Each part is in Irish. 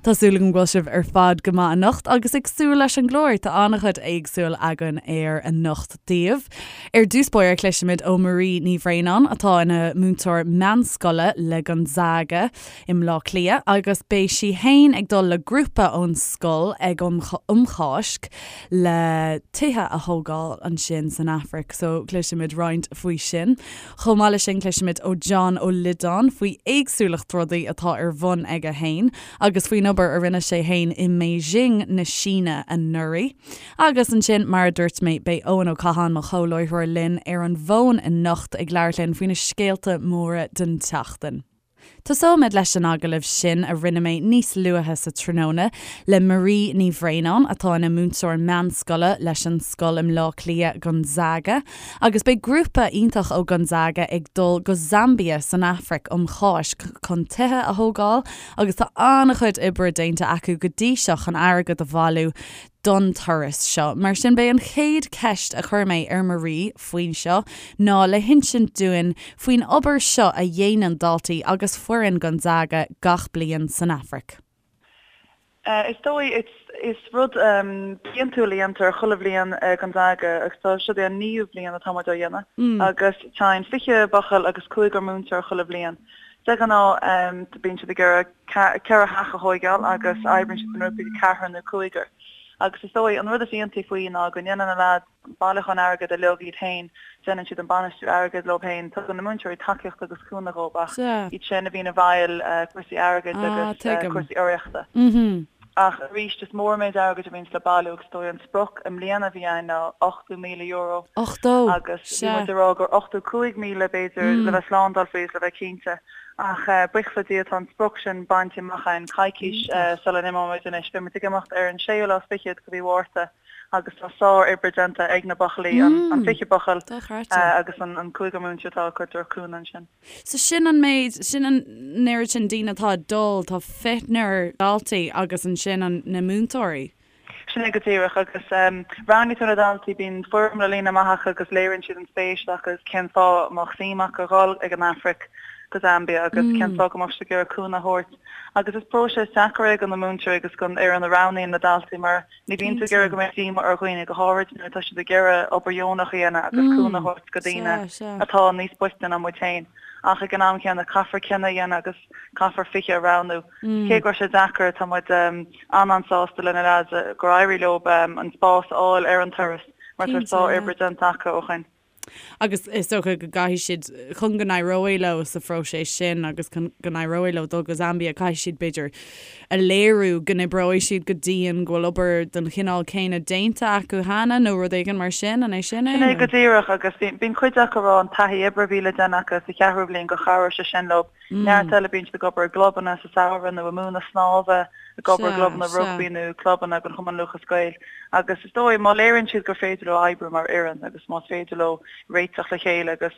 Tá súil agam go bhfuil sibh ar fad go maith anocht agus ag súil leis an gclár. Tá an-chuid éagsúil againn air anocht daoibh. Ar dtús báire cloisfimid ó Marie Ní Bhraonáin atá ina múinteoir meánscoile le Gonzaga i mBleá Cliath agus beidh sí fhéin ag dul le grúpa ón scoil ag um Cháisc le tithe a thógáil ansin san Afraic so cloisfimid roinnt faoi sin. Chomh maith leis sin cloisfimid ó John Ó Loideáin faoi éagsúlacht rudaí atá ar bhun aige fhéin agus faoin obair a rinne sé fhéin i mBeijing na Síne anuraidh. Agus ansin mar a dúirt mé beidh Eoin Ó Catháin mo chomhláithreoir linn ar an bhfón anocht ag labhairt linn faoi na scéalta móra den tseachtain. Tosóimid leis an agallamh sin a rinne mé níos luaithe sa tráthnóna le Marie Ní Bhraonáin, atá ina múinteoir meánscoile leis an scoil i mBleá Cliath, Gonzaga, agus beidh grúpa iontach ó Gonzaga ag dul go Zambia san Afraic um Cháisc chun tithe a thógáil agus tá an-chuid oibre déanta acu go dtí seo chun airgead a bhailiú don turas seo. Mar sin, b'é an chéad cheist a chuir mé ar Marie faoin seo ná le hinsint dúinn faoin obair seo a dhéanann daltaí agus foireann Gonzaga gach bliain san Afraic. Is dóigh, is rud bliantúil a dhéantar chuile bhliain i Gonzaga agus tá seo é an naoú bliain atá muid á dhéanamh agus téann 20 buachaill agus cúigear múinteoir chuile bhliain. De ghnáth bíonn siad ag iarraidh ceithre theach a thóigeáil agus oibríonn siad i ngrúpaí de ceathrar nó cúigear. Agus is dóigh, an rud is iontaí faoi ná go ndéanann na leaids bailiúchán airgid uilig iad féin, déanann siad an bainistiú airgid leo féin, tugann na múinteoirí tacaíocht agus cúnamh dhóibh ach iad sin a bhíonn i bhfeighil cúrsaí airgid agus cúrsaí urraíochta. Ach arís, is mór an méid airgid a bhíonns le bailiú agus is dóigh an sprioc i mbliana a bhí ann ná €80,000 80! Agus bhí muid ag rá gur 85,000 b'fhéidir le bheith slándáil faoi is le bheith cinnte. Ach buíochas le Dia tá an sprioc sin bainte amach againn coicís sula n-imeoimid anois. Beidh muid ag imeacht ar an séú lá is fichead de mhí Mhárta agus tá sár-oibre déanta ag na buachaillí, an 20 buachaill agus an cúigear múinteoir atá acu ag tabhairt cúnamh ansin. So sin an méid, sin an oiread sin daoine atá ag dul, tá fichnear daltaí agus ansin an, na múinteoirí. Sin é go díreach agus roghnaítear na daltaí, bíonn foirm le líonadh amach acu agus léiríonn siad an spéis agus cén fáth a mbeadh suim acu a dhul ag an Afraic go Zambia agus cén fáth go mbeadh siad ag iarraidh cúnamh a thabhairt. Agus is próiseas deacair é do na múinteoirí agus don fhoireann a roghnaíonn na daltaí mar ní bhíonn tú ag iarraidh go mbeadh díoma ar dhaoine, go háirid nuair atá siad ag iarraidh obair dheonach a dhéanamh agus cúnamh a thabhairt go daoine atá níos boichte ná muid féin. Ach ag an am chéanna caithfear cinneadh a dhéanamh agus caithfear 20 a roghnú. Cé go raibh sé deacair, tá muid an-an-sásta le na leaids gur éirigh leo an spás a fháil ar an turas mar tá sár-oibre déanta acu ó shin. Agus is dócha go gcaithfidh siad, chun go n-éireoidh leo sa phróiseas sin agus chun go n-éireoidh leo dul go Zambia, caithfidh siad, b'fhéidir, a léiriú go n-oibreoidh siad go dian, go bhfuil obair den chineál céanna déanta acu cheana nó rud éigin mar sin, an é sin é? Sin é go díreach agus bíonn cuid acu ag rá an taithí oibre a bhí le déanamh acu sa cheathrú bhliain gur chabhraigh sé sin leo. Neart eile bíonn siad ag obair i gclubanna sa samhradh nó ag múineadh snámha, ag obair i gclubanna rugbaí nó clubanna den Chumann Lúthchleas Gael. Agus is dóigh, má léiríonn siad gur féidir leo oibriú mar fhoireann agus más féidir leo réiteach le chéile agus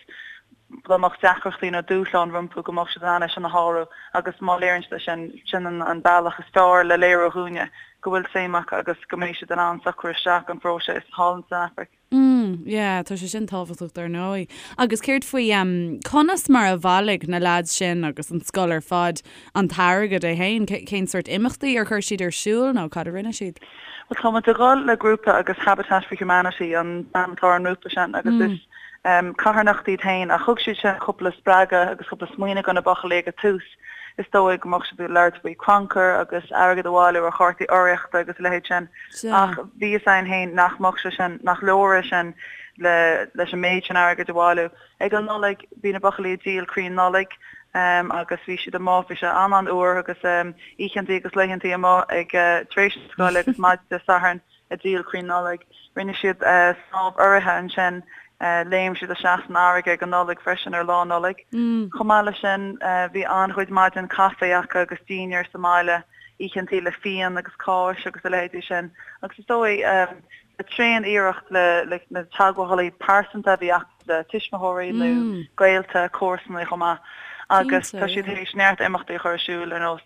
dá mbeadh deacrachtaí nó dúshláin rompu go mbeadh siad in ann é sin a shárú agus má léiríonn siad é sin, sin an bealach is fearr le léiriú dhúinne go bhfuil suim acu agus go mbeidh siad in ann socrú isteach an phróiseas thall san Afraic. Mm, yeah, tá sé sin tábhachtach dar ndóigh. Agus céard faoi, em, conas mar a bhailigh na leaids sin agus an scoil ar fad an t-airgead é fhéin? Cén sórt imeachtaí ar chuir siad ar siúl nó cad a rinne siad? Bhuel, tá muid ag dul le grúpa agus Habitat for Humanity an t-ainm atá ar an ngrúpa sin agus is em, carthanacht iad féin ach thug siad sin cúpla spreagadh agus cúpla smaoineamh do na buachaillí ag an tús. Is dóigh go mbeadh siad ag labhairt faoi crannchur agus airgead a bhailiú ar chártaí urraíochta agus a leithéid sin ach bhí fhios againn féin nach mbeadh sé sin, nach leor é sin le leis an méid sin airgid a bhailiú. Ag an Nollaig bhí na buachaillí ag díol crainn Nollag agus bhí siad amuigh, bhí sé an-an-fhuar agus oícheantaí agus laethantaí amuigh ag tar éis na scoile agus maidin Dé Sathairn. ag díol crainn Nollag. Rinne siad snámh urraithe ansin, léim siad isteach san fharraige ag an Nollaig freisin ar Lá Nollag. Chomh maith leis sin bhí an-chuid maidin caife acu agus dinnéar sa mbaile, oícheantaí le fíon agus cáis agus a leithéidí sin. Agus is dóigh le tréan iarracht le na teagmhálaí pearsanta a bhí acu, le tuismitheoirí nó gaolta, comharsanaí chomh maith agus tá siad tar éis neart imeachtaí a chur ar siúl ar nós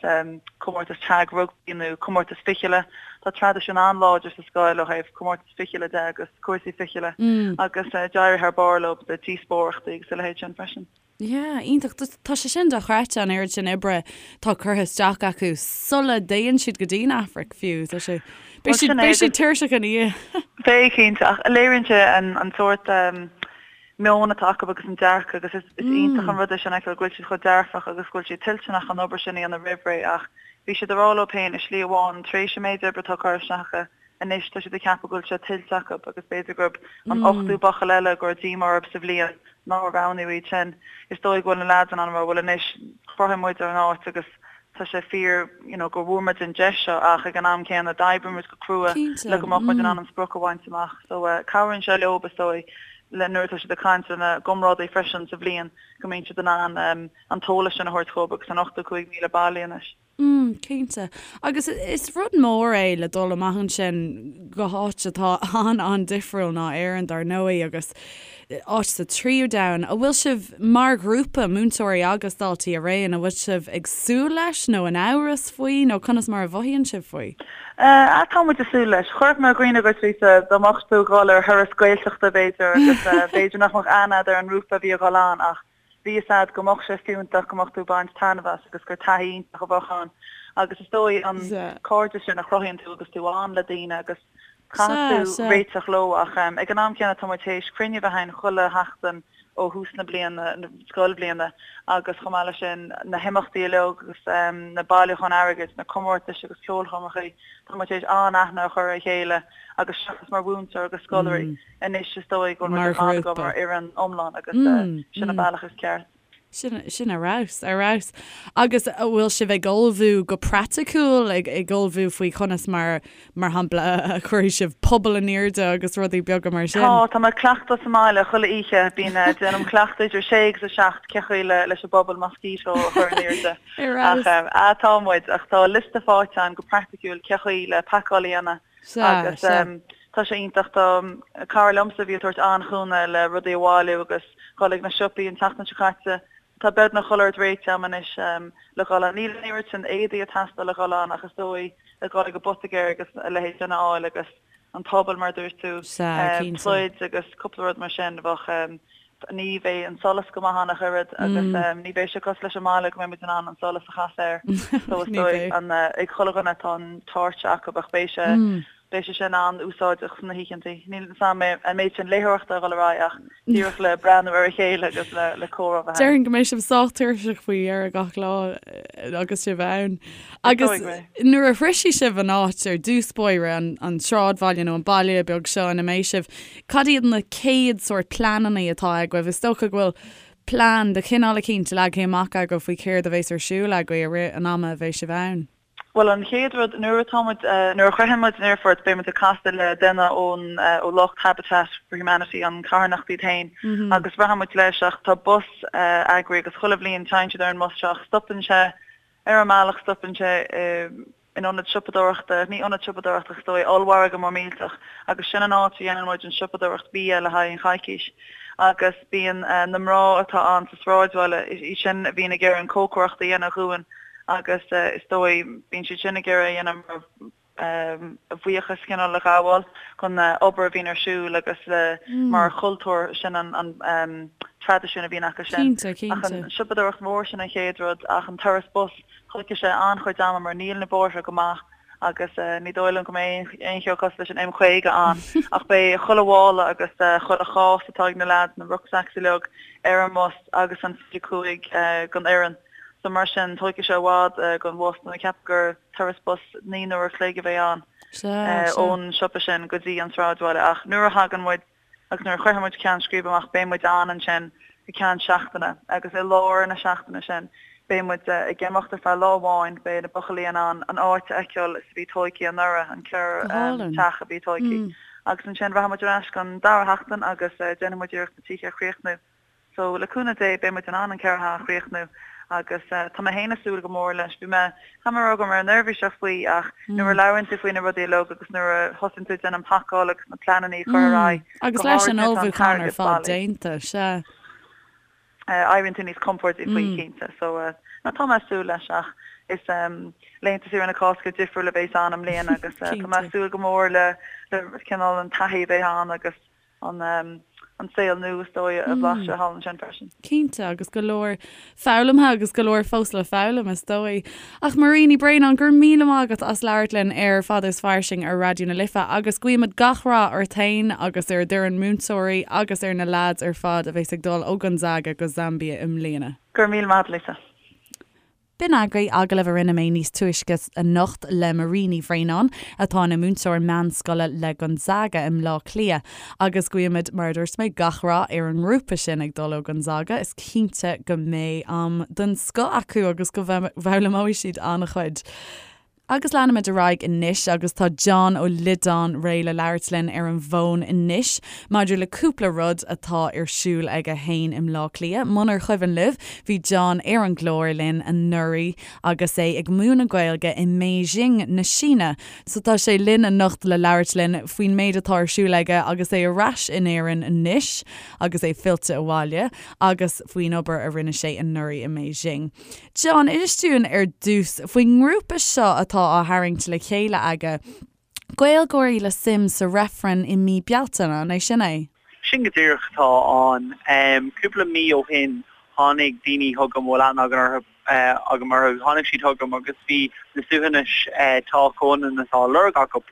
comórtas tag rugbaí nó comórtas fichille. Tá traidisiún an-láidir sa scoil ó thaobh comórtas fichille de agus cúrsaí fichille agus d'éirigh thar barr leo le díospóireachtaí agus a leithéid sin freisin. Yeah, iontach. Tá sé sin dochreidte an oiread sin oibre atá curtha isteach acu sula dtéann siad go dtí an Afraic fiú. Tá sé, beidh siad, beidh siad tuirseach ina dhiaidh. Beidh, cinnte, ach léiríonn sé an, an sórt meon atá acu agus an dearcadh agus is, is iontach an rud é sin a fheiceáil go bhfuil siad chomh dearfach agus go bhfuil siad toilteanach an obair sin a dhéanamh roimh ré ach bhí siad ag rá leo féin i slí amháin tar éis an méid oibre atá curtha isteach acu Anois tá siad ag ceapadh go bhfuil sé tuillte acu agus b'fhéidir gurb an ochtú buachaill eile go raibh díomá orthu sa bhliain nár roghnaíodh iad sin. Is dóigh go bhfuil na leaids in ann a rá bhuel anois chruthaigh muid ár n-áit agus tá sé fíor you know go bhfuair muid an deis seo ach ag an am céanna d'oibrigh muid go crua le go mbeadh muid in ann an sprioc a bhaint amach. So cabhraíonn sé leo is dóigh le nuair atá siad ag caint lena gcomrádaí freisin sa bhliain go mbíonn siad in ann an t-eolas sin a thabhairt dhóibh agus an 85,000 bailithe anois. Mm, cinnte. Agus is rud mór é le dul amach ansin go háit atá an-an-difriúil ná Éirinn, dar ndóigh, agus áit sa tríú domhan. An bhfuil sibh, mar ghrúpa, múinteoirí agus daltaí araon, an bhfuil sibh ag súil leis nó in amhras faoi nó conas mar a mhothaíonn sibh faoi? Eh, tá muid ag súil leis. Chuirfeadh mé i gcuimhne dhuit, Lisa, dá mbeadh tú ag dhul ar thuras Gaeltachta, b'fhéidir, agus b'fhéidir nach mbeadh aithne agat ar an ngrúpa a bhí ag dhul ann ach Bhí fhios a'd go mbeadh sé fiúntach, go mbeadh tú ag baint taitneamh as agus gur taithí iontach a bheadh ann. Agus is dóigh an cairdeas sin a chruthaíonn tú agus tú ann le daoine agus caithfidh tú réiteach leo ach ag an am céanna tá muid théis cruinniú a bheith againn chuile sheachtain ó thús na bliana, na scoilbhliana agus chomh maith leis sin na himeachtaí uilig agus na bailiúcháin airgid, na comórtais agus ceolchoirmeacha, tá muid théis an-aithne a chur ar a chéile agus seachas mar mhúinteoir agus scoláirí. Anois is dóigh go bhfuil muid ar fad ag obair mar fhoireann iomlán agus sin an bealach is ceart. Sin, sin ar fheabhas, ar fheabhas. Agus an bhfuil sibh ag ullmhú go praiticiúil, ag, ag ullmhú faoi chonas mar, mar shampla, a chuirfidh sibh puball in airde agus rudaí beaga mar sin? Tá, tá mé ag cleachtadh sa mbaile chuile oíche. Bíonn, déanaim cleachtadh idir sé agus a seacht cé chaoi le, leis an bpuball mosquito a chur in airde. Ar fheabhas. Ach, ah, tá muid, ach tá liosta faighte agam go praiticiúil cé chaoi le pacáil a dhéanamh. Sea, Agus sea. tá sé iontach. Tá cara liomsa a bhí ag tabhairt an-chúnamh le rudaí a bhailiú agus dhul ag na siopaí an tseachtain seo caite. Tá beagnach chuile rud réitithe agam anois le dhul ann. Níl an oiread sin éadaí ag teastáil le dhul ann ach is dóigh le dhul ag an bpoitigéir agus a leithéid sin a fháil agus an puball mar a dúirt tú, Sea, cinnte. pluid agus cúpla rud mar sin. Bheadh Ní bheidh an solas go maith ann ach oiread agus ní bheidh sé cosúil leis an mbaile go mbeidh muid in ann an solas a chasadh air. So is dóigh an ag chuile dhuine tá an torch acu ach beidh sé beidh sé sin an-úsáideach sna hoícheantaí. Níl fhios a'm an méid sin léitheoireachta a dhul ar aghaidh ach díreach le breathnú ar a chéile agus le le comhrá a bheith ann. Déarfainn go mbeidh sibh sách tuirseach faoi dheireadh gach lá agus sibh ann. Agus nuair a shroisfidh sibh an áit ar dtús báire, an sráidbhaile nó an baile beag seo ina mbeidh sibh, cad iad na céad sórt pleananna atá agaibh? Is dócha go bhfuil plean de chineál eicínt leagtha amach agaibh faoi céard a bheas ar siúl agaibh i rith an ama a bheidh sibh ann. Bhuel, an chéad rud, nuair atá muid, nuair a shroicheann muid an aerfort, beidh muid ag casadh le duine ón, ó lucht Habitat for Humanity, an carthanacht iad féin, agus rachaidh muid leis ach tá bus eagraithe agus chuile bhliain téann siad ar an mbus seo ach stopann sé Ar an mbealach stopann sé in ionad siopadóireachta, ní ionad siopadóireachta ach is dóigh, ollmhargadh mór millteach agus sin an áit a dhéanann muid an siopadóireacht bia le haghaidh an choicís. Agus bíonn na mná atá ann sa sráidbhaile, iad sin a bhíonn ag iarraidh an cócaireacht a dhéanamh dhúinn agus is dóigh bíonn siad sin ag iarraidh a dhéanamh mar a bhuíochas cineál a ghabháil don obair a bhíonn ar siúl agus le mar chultúr sin an traidisiún a bhíonn acu sin. Cinnte, cinnte. Ach an siopadóireacht mhór sin an chéad rud ach an turas bus tógfaidh sé an-chuid ama mar níl na bóithre go maith agus ní dóigh liom go mbeidh aon cheo cosúil leis an M50 ann ach beidh chuile mhála agus chuile chás atá ag na leaids, na rucksacks uilig ar an mbus agus an 25 den fhoireann. So mar sin tógfaidh sé i bhfad don bhus nó ceapaim gur turas bus 9 n-uair a chloig a bheidh ann ón siopa sin go dtí an sráidbhaile ach nuair a thagann muid agus nuair a shroicheann muid ceann scríbe amach beidh muid ann ansin go ceann seachtaine agus i lár na seachtaine sin beidh muid ag imeacht ar feadh lá amháin beidh na buachaillí in ann an áit a fheiceáil is a bhí tóigthe anuraidh, an Go 4 teach a bhí tóigthe agus ansin rachaidh muid ar ais don dara sheachtain agus déanfaidh muid iarracht na tithe a chríochnú. So, le cúnamh Dé, beidh muid in ann an 4 theach a chríochnú agus tá mé féin ag súil go mór leis. Bhí mé, caithfidh mé a rá go raibh mé neirbhíseach faoi ach nuair a labhraíonn tú faoi na rudaí uilig agus nuair a thosaíonn tú ag déanamh an pacáil agus na pleananna a chur ar aghaidh, Agus go leis háirid an nuair atá an ullmhúchán ar t-airgead fad bailí. déanta, sea. Éiríonn tú níos compórdaí faoi, cinnte. So, no, tá mé ag súil leis ach is laethanta saoire na Cásca difriúil a bheas ann i mbliana agus tá mé ag súil go mór le, le cineál an taithí a bheidh ann agus an. an saol nua is dóigh a bhlaiseadh thall ansin freisin. Cinnte, agus go leor foghlamtha agus go leor fós le foghlaim is dóigh. Ach Marie Ní Bhraonáin, go raibh míle maith agat as labhairt linn ar Fada is Fairsing ar Raidió na Life agus guímid gach rath ort féin agus ar d'fhoireann múinteoirí agus ar na leaids ar fad a bheas ag dul ó Gonzaga go Zambia i mbliana. Go raibh míle maith agat, Lisa. B'in agaibh agallamh a rinne mé níos túisce anocht le Marie Ní Bhraonáin, atá ina múinteoir meánscoile le Gonzaga i mBleá Cliath. Agus guímid, mar a dúirt mé, gach rath ar an ngrúpa sin ag dul ó Gonzaga. Is cinnte go mbeidh am den scoth acu agus go bhfoghlaimeoidh siad an-chuid. Agus leanfaimid ar aghaidh anois agus tá John Ó Loideáin réidh le labhairt linn ar an bhfón anois maidir le cúpla rud atá ar siúl aige fhéin i mBleá Cliath. Munar chuimhin libh, bhí John ar an gclár linn anuraidh agus é ag múineadh Gaeilge i mBeijing na Síne. So tá sé linn anocht le labhairt linn faoin méid atá ar siúl aige agus é ar ais in Éirinn anois agus é fillte abhaile agus faoin obair a rinne sé anuraidh i mBeijing. John, inis dúinn ar dtús faoin ngrúpa seo atá á tharraingt le chéile aige, Gaeilgeoirí le suim sa reifreann i mí Bealtaine, an é sin é? Sin go díreach atá ann. Cúpla mí ó shin tháinig daoine chugam a bhfuil aithne agam agam orthu, tháinig siad chugam agus bhí na suaitheantais Tá Comhionannas á lorg acu.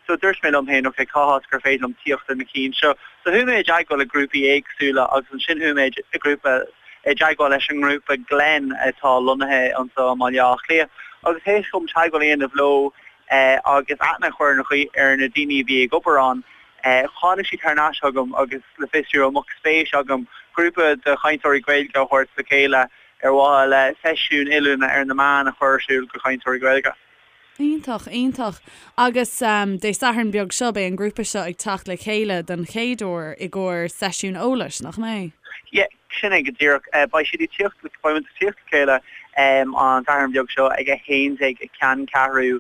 So dúirt mé liom féin, ok, cá háit gur féidir liom tíocht ar na cinn seo? So chuaigh mé i dteagmháil le grúpaí éagsúla agus ansin chuaigh mé i grúpa i dteagmháil leis an ngrúpa Glen atá lonnaithe anseo i mBaile Átha Cliath agus théis dom teagmháil a dhéanamh leo agus aithne a chur ar na daoine a bhí ag obair ann, tháinig siad thar n-ais chugam agus le fiosrú an mbeadh spéis agam grúpa de chainteoirí Gaeilge a thabhairt le chéile ar mhaithe le seisiún oiliúna ar na meáin a chur ar siúl do chainteoirí Gaeilge. Iontach, iontach. Agus Dé Sathairn beag seo, beidh an grúpa seo ag teacht le chéile don chéad uair i gcomhair seisiún eolais, nach mbeidh? Yeah, sin é go díreach. Beidh siad ag tíocht, beidh muid ag tíocht le chéile an Satharn beag seo ag 11 i gCeanncheathrú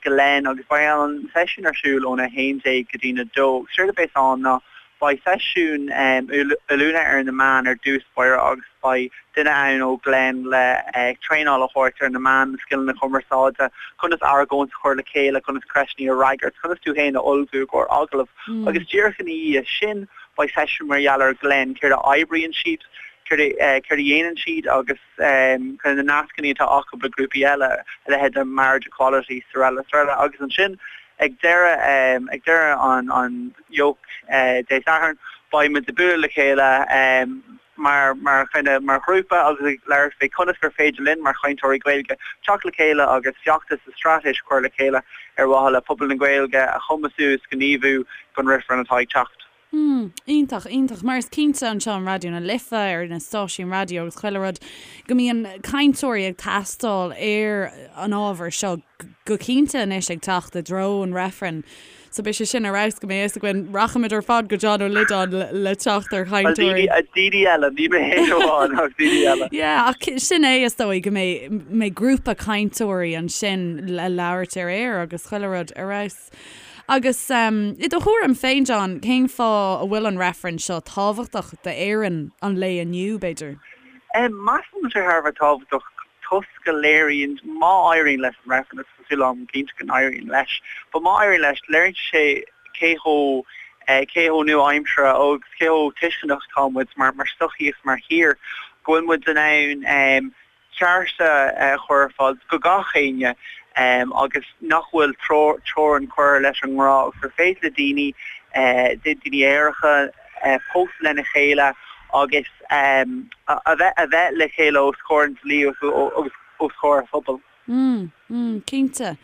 Glen agus beidh an seisiún ar siúl óna 11 go dtína 2. Séard a bheas ann ná beidh seisiún oiliúna ar na meáin ar dtús báire agus Beidh duine ann ó Glen le traenáil a thabhairt ar na meáin, na scileanna cumarsáide, conas argóint a chur le chéile, conas ceisteanna a fhreagairt, conas tú féin a ullmhú i gcomhair agallamh. Agus díreach ina dhiaidh sin, beidh seisiún mar gheall ar Glen, céard a oibríonn siad, céard a dhéanann siad agus kind of na nascanna atá acu le grúpaí eile, a leithéid de Marriage Equality, srl. srl. Agus ansin ag deireadh ag deireadh an an jóc Dé Sathairn, beidh muid ag bualadh le chéile mar mar kind of mar ghrúpa agus ag labhairt faoi conas gur féidir linn mar chainteoirí Gaeilge teacht le chéile agus feachtas is straitéis a chur le chéile ar mhaithe le pobal na Gaeilge a chumasú is gníomhú don reifreann atá ag teacht. Mm, iontach, iontach. Mar is cinnte anseo in Raidió na Life, ar na stáisiúin raidió agus chuile rud, go mbíonn cainteoirí ag teastáil ar an ábhar seo go cinnte anois ag teacht i dtreo an reifrinn. So beidh sé sin ar fheabhas go mbeidh fhios againn. Rachaimid ar fad go John Ó Loideáin le teacht ar chainteoirí. Bhuel, daoine eile, ní mé féin amháin ach daoine eile. Yeah, ach sin é is dóigh go mbeidh mbeidh grúpa cainteoirí ansin le labhairt ar aer agus chuile rud ar fheabhas. Agus i do thuairim féin, John, cén fáth a bhfuil an reifreann seo tábhachtach d'Éirinn an lae inniu, b'fhéidir? Measaim go bhfuil sé thar a bheith tábhachtach toisc go léiríonn, má éiríonn leis an reifreann, agus tá súil agam cinnte go n-éiríonn leis, but má éiríonn leis, léiríonn sé cé chomh, cé chomh nua-aimseartha agus cé chomh tuisceanach atá muid mar, mar sochaí agus mar thír, go bhfuil muid in ann cearta a chur ar fáil do gach éinne agus nach bhfuil teorainn curtha leis an ngrá agus gur féidir le daoine, daoine aeracha, pósadh lena chéile agus a bheith a bheith le chéile os comhair an dlí agus os comhair an phobail. Mm, mm, cinnte.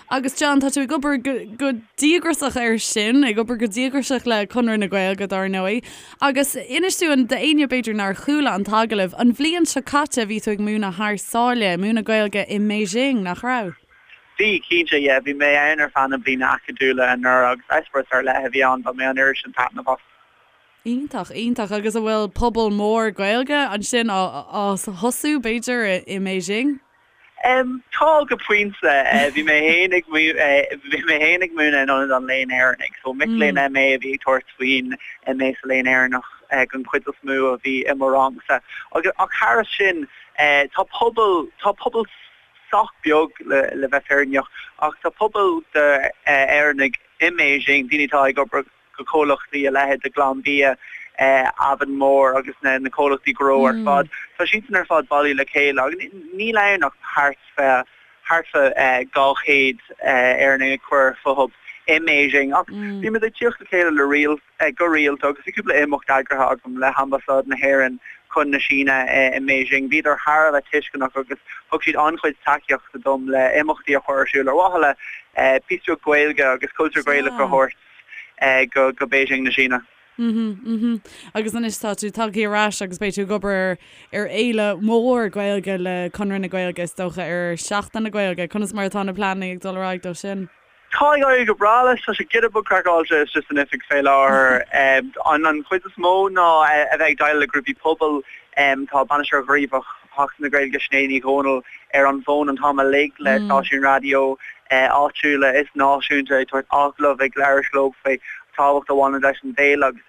Agus John, tá tú ag obair go, go díograiseach air sin, ag obair go díograiseach le Conradh na Gaeilge, dar ndóigh. Agus inis dúinn, d'éinne b'fhéidir nár chuala an t-agallamh, an bhliain seo caite bhí tú ag múineadh thar sáile, múineadh Gaeilge i mBeijing, nach raibh? Bhí, cinnte, yeah. Bhí mé ann ar feadh na bliana acadúla anuraidh agus eispéireas ar leith a bhí ann, bhain mé an oiread sin taitneamh as. Iontach, iontach. Agus an bhfuil pobal mór Gaeilge ansin á thosú, b'fhéidir, i mBeijing? Tá, go pointe. Bhí mé féin ag bhí mé féin ag múineadh in Ionad an Léinn Éireannaigh, so mic léinn MA a bhí ag tabhairt faoin MA sa Léann Éireannach den chuid is mó a bhí i mo rangsa. Agus ach thairis sin, tá pobal tá pobal sách beag le bheith fírinneach, ach tá pobal d'Éireannaigh i mBeijing, daoine atá ag obair go comhlachtaí a leithéid de Glanbia. Avonmore agus na comhlachtaí gnó ar fad, tá siadsan ar fad bailithe le chéile agus níl ann ach thart fá thart fá 200 Éireannach ag cur fúthu i mBeijing ach bímid ag tíocht le chéile le rial go rialta agus bhí cúpla imeacht eagraithe agam le hAmbasáid na hÉireann chun na Síne i mBeijing. Bhíodar thar a bheith tuisceanach agus thug siad an-chuid tacaíochta dom le imeachtaí a chur ar siúl ar mhaithe le píosa beag Gaeilge agus cultúr Gaelach a thabhairt go Beijing na Síne. Mhm, mhm. Agus anois tá tú tagtha ar ais agus beidh tú ag obair ar fhéile mhór Gaeilge le Conradh na Gaeilge is dócha ar Seachtain na Gaeilge. Conas mar atá na pleananna ag dul ar aghaidh dó sin? Tá ag éirí go breá leis, tá sé giota beag craiceáilte istigh san oifig fé láthair. An chuid is mó ná a bheith ag déileáil le grúpaí pobail. Tá Bainisteoir Gníomhach Sheachtain na Gaeilge, Sinéad Ní Dhomhnaill, ar an bhfón an t-am uilig le stáisiúin raidió áitiúla is náisiúnta ag tabhairt agallamh, ag labhairt leo faoi tábhacht a bhaineann leis an bhféile agus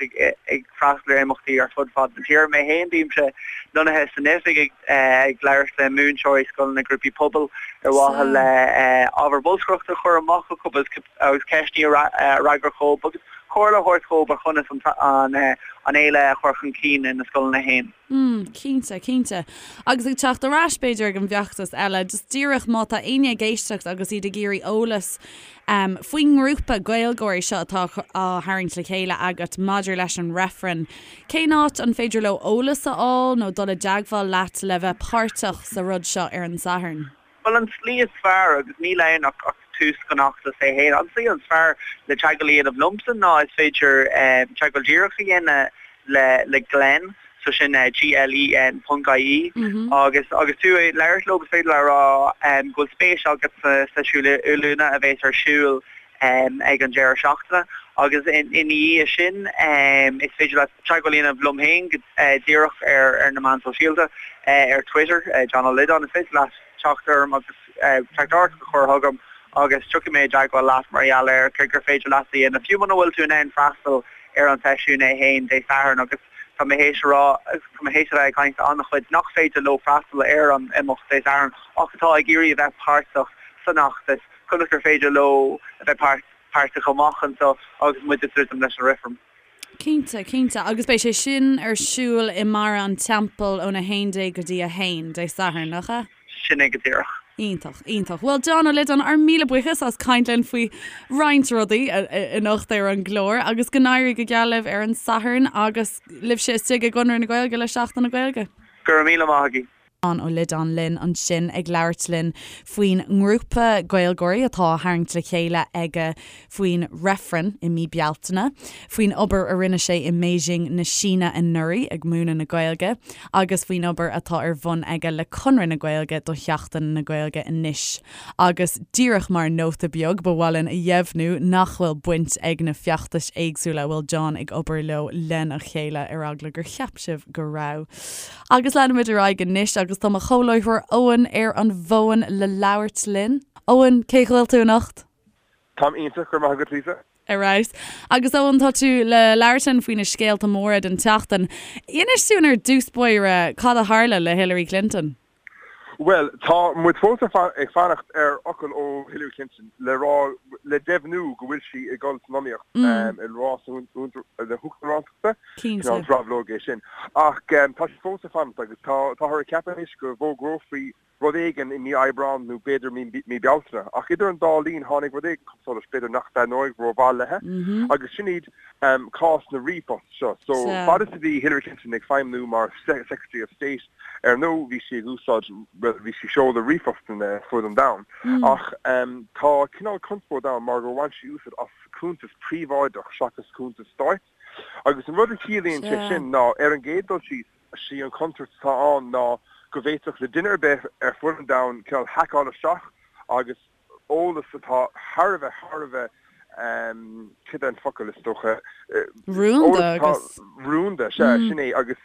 ag freastal ar imeachtaí ar fud fad na tíre. Mé féin, bímse lonnaithe san oifig ag labhairt le múinteoirí, scoileanna, grúpaí pobail ar mhaithe le ábhar bolscaireachta a chur amach acu agus ceisteanna a fhreagairt dhóibh agus comhairle a thabhairt dhóibh ar chonas an fhéile a chur chun cinn ina scoileanna féin. Mm, cinnte, cinnte. Agus ag teacht ar ais, b'fhéidir, ag an bhfeachtas eile, just díreach má tá éinne ag éisteacht agus iad ag iarraidh eolas um, faoin ngrúpa Gaeilgeoirí seo atá á tharraingt le chéile agat maidir leis an reifreann, cén áit an féidir leo eolas a fháil nó dul i dteagmháil leat le bheith páirteach sa rud seo ar an Satharn? Bhuel, an tslí is fearr, agus níl ann ach tús den fheachtas é féin, an tslí is fearr le teagmháil a dhéanamh liomsa ná is féidir teagmháil díreach a dhéanamh le le Glen, so sin G-L-E-N ponc I-E, agus agus tú ag labhairt leo is féidir leat a rá go bhfuil spéis agat sa seisiún oiliúna a bheas ar siúl ag an deireadh seachtaine agus ina dhiaidh sin is féidir leat teagmháil a dhéanamh liom féin go díreach ar na meáin sóisialta, ar Twitter, John Ó Loideáin, is féidir leat teacht orm agus teachtaireacht a chur chugam agus tiocfaidh mé i dteagmháil leat mar gheall ar céard gur féidir leat a dhéanamh, fiú muna bhfuil tú in ann freastal ar an seisiún é féin Dé Sathairn agus tá mé théis a rá, tá mé théis a bheith ag caint le an-chuid nach féidir leo freastal ar an imeacht Dé Sathairn ach atá ag iarraidh a bheith páirteach san fheachtas. Conas gur féidir leo a bheith páirteach amach anseo agus muid ag druidim leis an reifreann? Cinnte, cinnte. Agus beidh sé sin ar siúl i mBarra an Teampaill ón 11 go dtí 1, Dé Sathairn, nach ea? Sin é go díreach. Iontach, iontach. Bhuel, John Ó Loideáin, ár míle buíochas as caint linn faoi roinnt rudaí anocht ar an gclár agus go n-éirí go geal libh ar an Satharn agus libhse istigh i gConradh na Gaeilge le Seachtain na Gaeilge. Go raibh míle maith agaibh. John Ó Loideáin linn ansin ag labhairt linn faoin ngrúpa Gaeilgeoirí atá á tharraingt le chéile aige faoin reifreann i mí Bealtaine, faoin obair a rinne sé i mBeijing na Síne anuraidh ag múineadh na Gaeilge agus faoin obair atá ar bun aige le Conradh na Gaeilge do Sheachtain na Gaeilge anois. Agus díreach mar nóta beag, ba mhaith linn a dheimhniú nach bhfuil baint ag na feachtais éagsúla a bhfuil John ag obair leo lena chéile, ar eagla gur cheap sibh go raibh. Agus leanfaimid ar aghaidh anois agus tá mo chomhláithreoir Eoin ar an bhfón le labhairt linn. Eoin, cén chaoi a bhfuil tú anocht? Táim iontach, go raibh maith agat Lisa. Ar fheabhas. Agus Eoin, tá tú le labhairt linn faoi na scéalta móra den tseachtain. Inis dúinn ar dtús báire cad a tharla le Hillary Clinton? Bhuel, tá muid fós ag fanacht ar fhocal ó Hillary Clinton le rá, le deimhniú go bhfuil sí ag dul san iomaíocht i rás na huachtaránachta. Cineál drabhlóg é sin. Ach tá sí fós ag fanacht agus táthar ag ceapadh anois go bhfógrófaí rud éigin i mí Aibreáin nó b'fhéidir mí Bealtaine. Ach idir an dá linn tháinig rud éigin chun solais, b'fhéidir nach dtaitneoidh rómhaith léi, agus sin iad cás na ríomhphost seo. So, fad is a bhí Hillary Clinton ag feidhmniú mar Secretary of State, ar ndóigh bhí sí ag úsáid, bhuel, bhí sí ag seoladh ríomhphostanna ar fud an domhain. Ach tá cineál conspóid ann mar gur bhain sí úsáid as cuntas príobháideach seachas cuntas stáit. Agus an rud a chiallaíonn sé sin ná, ar an gcéad dul síos, sí an chontúirt atá ann ná go bhféadfadh le duine ar bith ar fud an domhain cineál haiceáil isteach agus eolas atá thar a bheith, thar a bheith, cad é an focal is dócha, Rúnda agus. Rúnda, sea, sin é, agus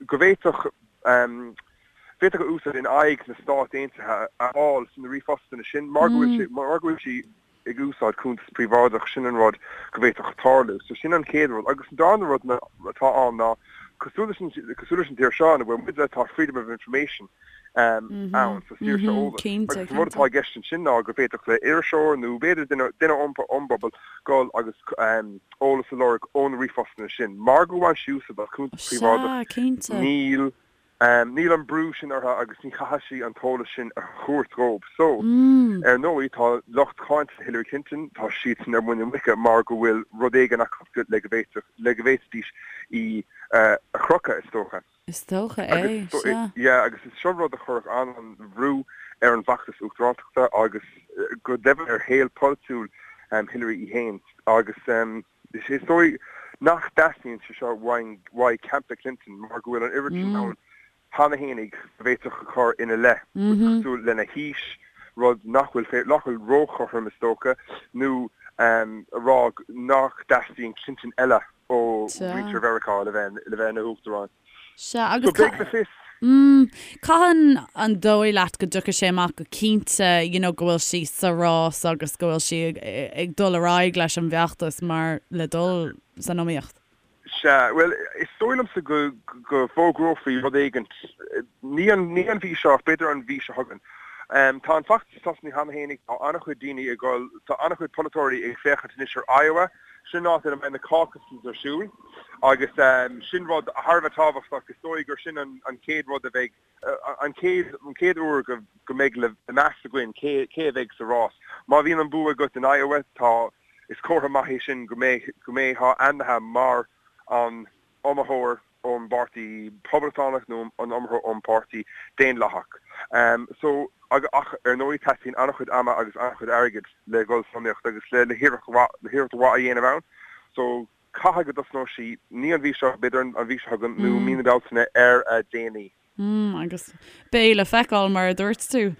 go bhféadfadh, bhféadfadh a úsáid in aghaidh na Stát Aontaithe a fháil sna ríomhphostanna sin mar go bhfuil sé, mar go bhfuil sí ag úsáid cuntas príobháideach, sin an rud go bhféadfadh tarlú. So sin an chéad rud. Agus an darna rud atá ann ná, cosúil leis an, cosúil leis an tír seo ina bhfuil muide, tá freedom of information. Ann, so saoirse eolais. Agus an rud atá i gceist ansin ná go bhféadfadh le iriseoir nó b'fhéidir duine duine ón bpobal dul agus eolas a lorg ó na ríomhphostanna sin. Mar gur bhain sí úsáid as cuntas príobháideach, níl níl an brú sin uirthi agus ní chaithfidh sí an t-eolas sin a thabhairt dhóibh. So, ar ndóigh, tá lucht cáinte Hillary Clinton, tá siadsan ar muin na muice mar go bhfuil rud éigin acu le go bhféadfadh le go bhféadfaidís í a chrochadh, is dócha. Is dócha é, sea. Yeah, agus is seo rud a chuirfeadh an-bhrú ar an bhfeachtas uachtarántachta agus go deimhin ar shaol polaitiúil Hillary í féin. Agus is dóigh nach dteastaíonn sé seo uaidh campa Clinton mar go bhfuil an oiread sin ann cheana fhéinig a bhféadfadh a chur ina leith, cosúil lena haois, rud nach bhfuil nach bhfuil róchothrom is dócha, nó a rá nach dteastaíonn Clinton eile ó mhuintir Mheiriceá le bheith le bheith ina huachtarán. Sea, agus So beidh le fios. Mm, cathain an dóigh leat go dtiocfaidh sé amach go cinnte, you know, go bhfuil sí sa rás agus go bhfuil sí ag, ag dul ar aghaidh leis an bhfeachtas mar le dul san iomaíocht? Sea, bhuel, is dóigh liomsa go, go bhfógrófaí rud éigint, ní an, ní an mhí seo ach b'fhéidir an mhí seo chugainn. Tá an feachtas tosnaithe cheana fhéinig, tá an-chuid daoine ag dul, tá an-chuid polaiteoirí ag féachaint anois ar Iowa, Sin áit ina mbeidh na caucuses ar siúl agus sin rud thar a bheith tábhachtach. Is dóigh gur sin an chéad rud a bheidh, an chéad, an chéad uair go go mbeidh le meas againn cé cé a bheidh sa rás. Má bhíonn an bua agat in Iowa, tá, is comhartha maith é sin go mbeidh, go mbeifeá ainmnithe mar an iomaitheoir ón bPáirtí Poblachtánach nó an iomaitheoir ón bPáirtí Daonlathach. So, ach ar ndóigh teastaíonn an-chuid ama agus an-chuid airgid le dhul san iomaíocht agus le le hiarracht mhaith le hiarracht mhaith a dhéanamh ann. So, caithfidh go dtosnóidh sí, ní an mhí seo, b'fhéidir an mhí seo chugainn nó mí na Bealtaine ar a déanaí. Mm, agus beidh le feiceáil mar a dúirt tú.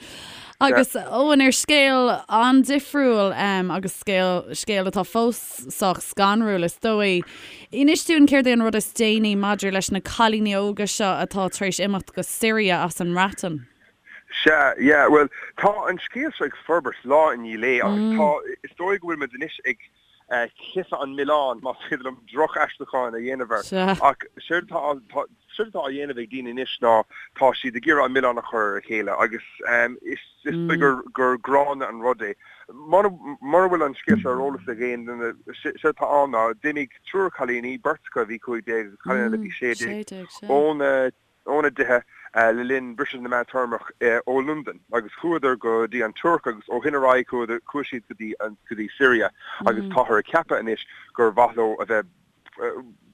Agus Eoin ar scéal an-difriúil um, agus scéal, scéal atá fós sách scanrúil is dóigh. Inis dúinn céard é an rud is déanaí maidir leis na cailíní óga seo atá tar éis imeacht go Siria as an mBreatain. Sea, yeah, bhuel, tá an scéal seo ag forbairt lá i ndiaidh lae agus tá, is dóigh go bhfuil muid anois ag cliseadh an mhilleáin, más féidir liom droch-aistriúchán a dhéanamh air. Ach séard atá, séard atá á dhéanamh ag daoine anois ná tá siad ag iarraidh an milleán a chur ar a chéile agus is dóigh gur, gur gránna an rud é. Mura, mura bhfuil an scéal seo ar eolas ag aon duine, séard atá ann ná d'imigh triúr cailíní, beirt acu a bhí 15 agus cailín eile a bhí 16, óna óna dtithe le linn briseadh na meántéarmach ó Londain agus chuadar go dtí an Tuirc agus ó shin ar aghaidh chuadar, chuaigh siad go dtí, go dtí Syria agus táthar ag ceapadh anois gur mhaith leo a bheith,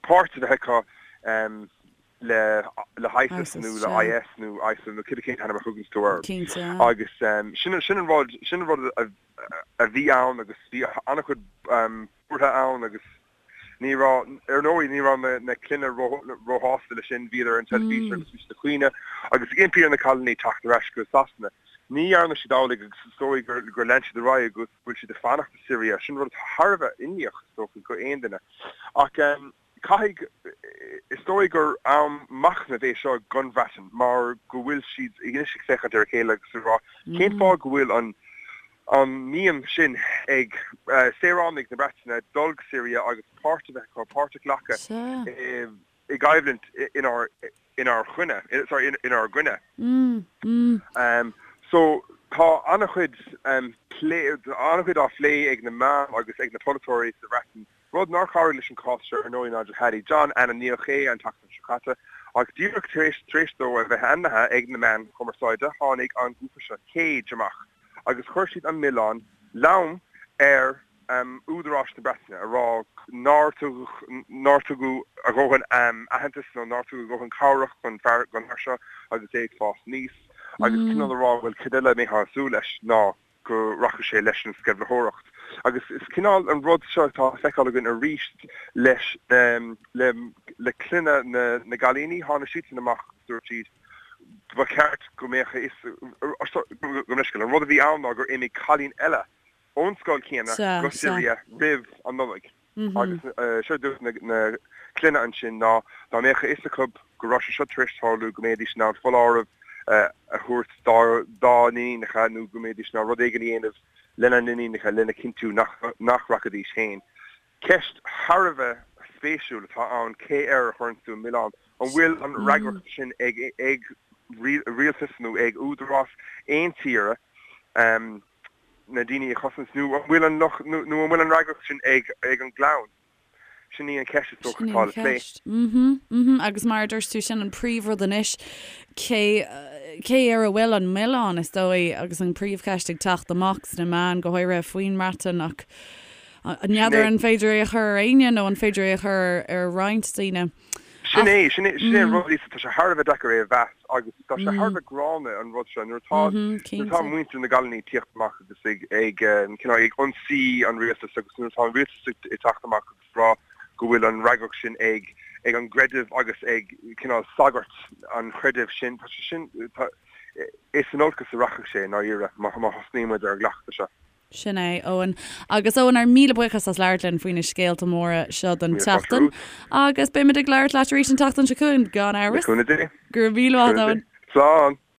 páirt a bheith acu le, le hISIS nó le IS nó ISIL nó cibé cén t-ainm a thuganns tú air. Agus sin, sin an rud, sin an rud a, a bhí ann agus bhí an-chuid buartha ann agus Ní raibh, ar ndóigh, ní raibh na clainne róshásta leis sin, bhíodar ar an teilifís agus bhí siad ag caoineadh agus ag impí ar na cailíní teacht ar ais go Sasana. Ní dhearna siad amhlaidh agus is dóigh gur lean siad ar aghaidh agus go bhfuil siad ag fanacht i Siria. Sin rud atá thar a bheith imníoch, is dócha, go aon duine. Ach caithfidh, is dóigh gur am machnaimh é seo don Bhreatain mar go bhfuil siad anois ag féachaint ar a chéile agus ag rá cén fáth go bhfuil an an mian sin ag saoránaigh na Breataine dul go Siria agus páirt a bheith acu, páirt a ghlacadh i gcoimhlint inár inár choinne, sorry, inár gcoinne. So tá an-chuid plé, an-chuid á phlé ag na meáin agus ag na polaiteoirí sa Bhreatain Rud nár chabhraigh leis an cás seo ar ndóigh Nigel Hadley. John, ainmníodh é an tseachtain seo caite, ach díreach tar éis tar éis dó a bheith ainmnithe ag na meáin chumarsáide tháinig an grúpa seo Cage amach agus chuir siad an milleán lom ar údaráis na Breataine a rá nár tugadh nár tugadh a dhóthain aitheantas nó nár tugadh a dhóthain cabhrach don fear don fhear seo agus é ag fás aníos agus cineál a rá bhuel cad eile a mbeifeá ag súil leis ná go rachadh sé leis an sceimhlitheoireacht. Agus is cineál an rud seo atá le feiceáil againn arís leis le le clainne na na gcailíní, tháinig siadsan amach agus dúirt siad ba cheart go mbeadh a fhios gabh mo leithscéal, an rud a bhí ann ná gur imigh cailín eile ón scoil chéanna go Siria roimh an Nollaig. Agus séard a dúirt na clainne ansin ná dá mbeadh a fhios acu go raibh sé seo tar éis tarlú go mbeidís in ann foláireamh a thabhairt dá n-iníonacha nó go mbeidís in ann rud éigin a dhéanamh lena n-iníonacha lena chinntiú nach rachaidís féin. Ceist thar a bheith spéisiúil atá ann cé air a chuireann tú an milleán? An bhfuil an fhreagracht sin ag. rialtas nó ag údarás aon tíre na daoine a chosaint nó an bhfuil an locht nó an bhfuil an fhreagracht sin ag an gclann? Sin í an cheist is dócha atá le plé. Mhm, mhm, agus mar a dúirt tú, sin an príomhrud anois, cé, cé ar a bhfuil an milleán, is dóigh, agus an príomhcheist ag teacht amach sna meáin, go háirithe faoin mBreatain, ach n'fheadar an féidir é a chur ar éinne nó an féidir é a chur ar roinnt daoine. Sin é, sin é, sin é an rud, Lisa, tá sé thar a bheith deacair é a mheas agus tá sé thar a bheith gránna an rud seo nuair atá, nuair atá muintir na gcailíní ag tíocht amach agus ag, ag, cineál ag ionsaí an rialtais agus nuair atá an rialtas ag teacht amach agus rá go bhfuil an fhreagracht sin ag, ag an gcreideamh agus ag cineál sagairt an chreidimh sin, tá sé sin, tá, is in olcas a rachaidh sé i ndáiríre má, má thosnaíonn muid ar an gcleachtadh seo. Sin é, Eoin. Agus Eoin, ár míle buíochas as labhairt linn faoi na scéalta móra seo don tseachtain. Agus beimid ag labhairt leat arís an tseachtain seo chugainn, gan amhras. Le cúnamh Dé. Go raibh míle maith, Eoin. Slán.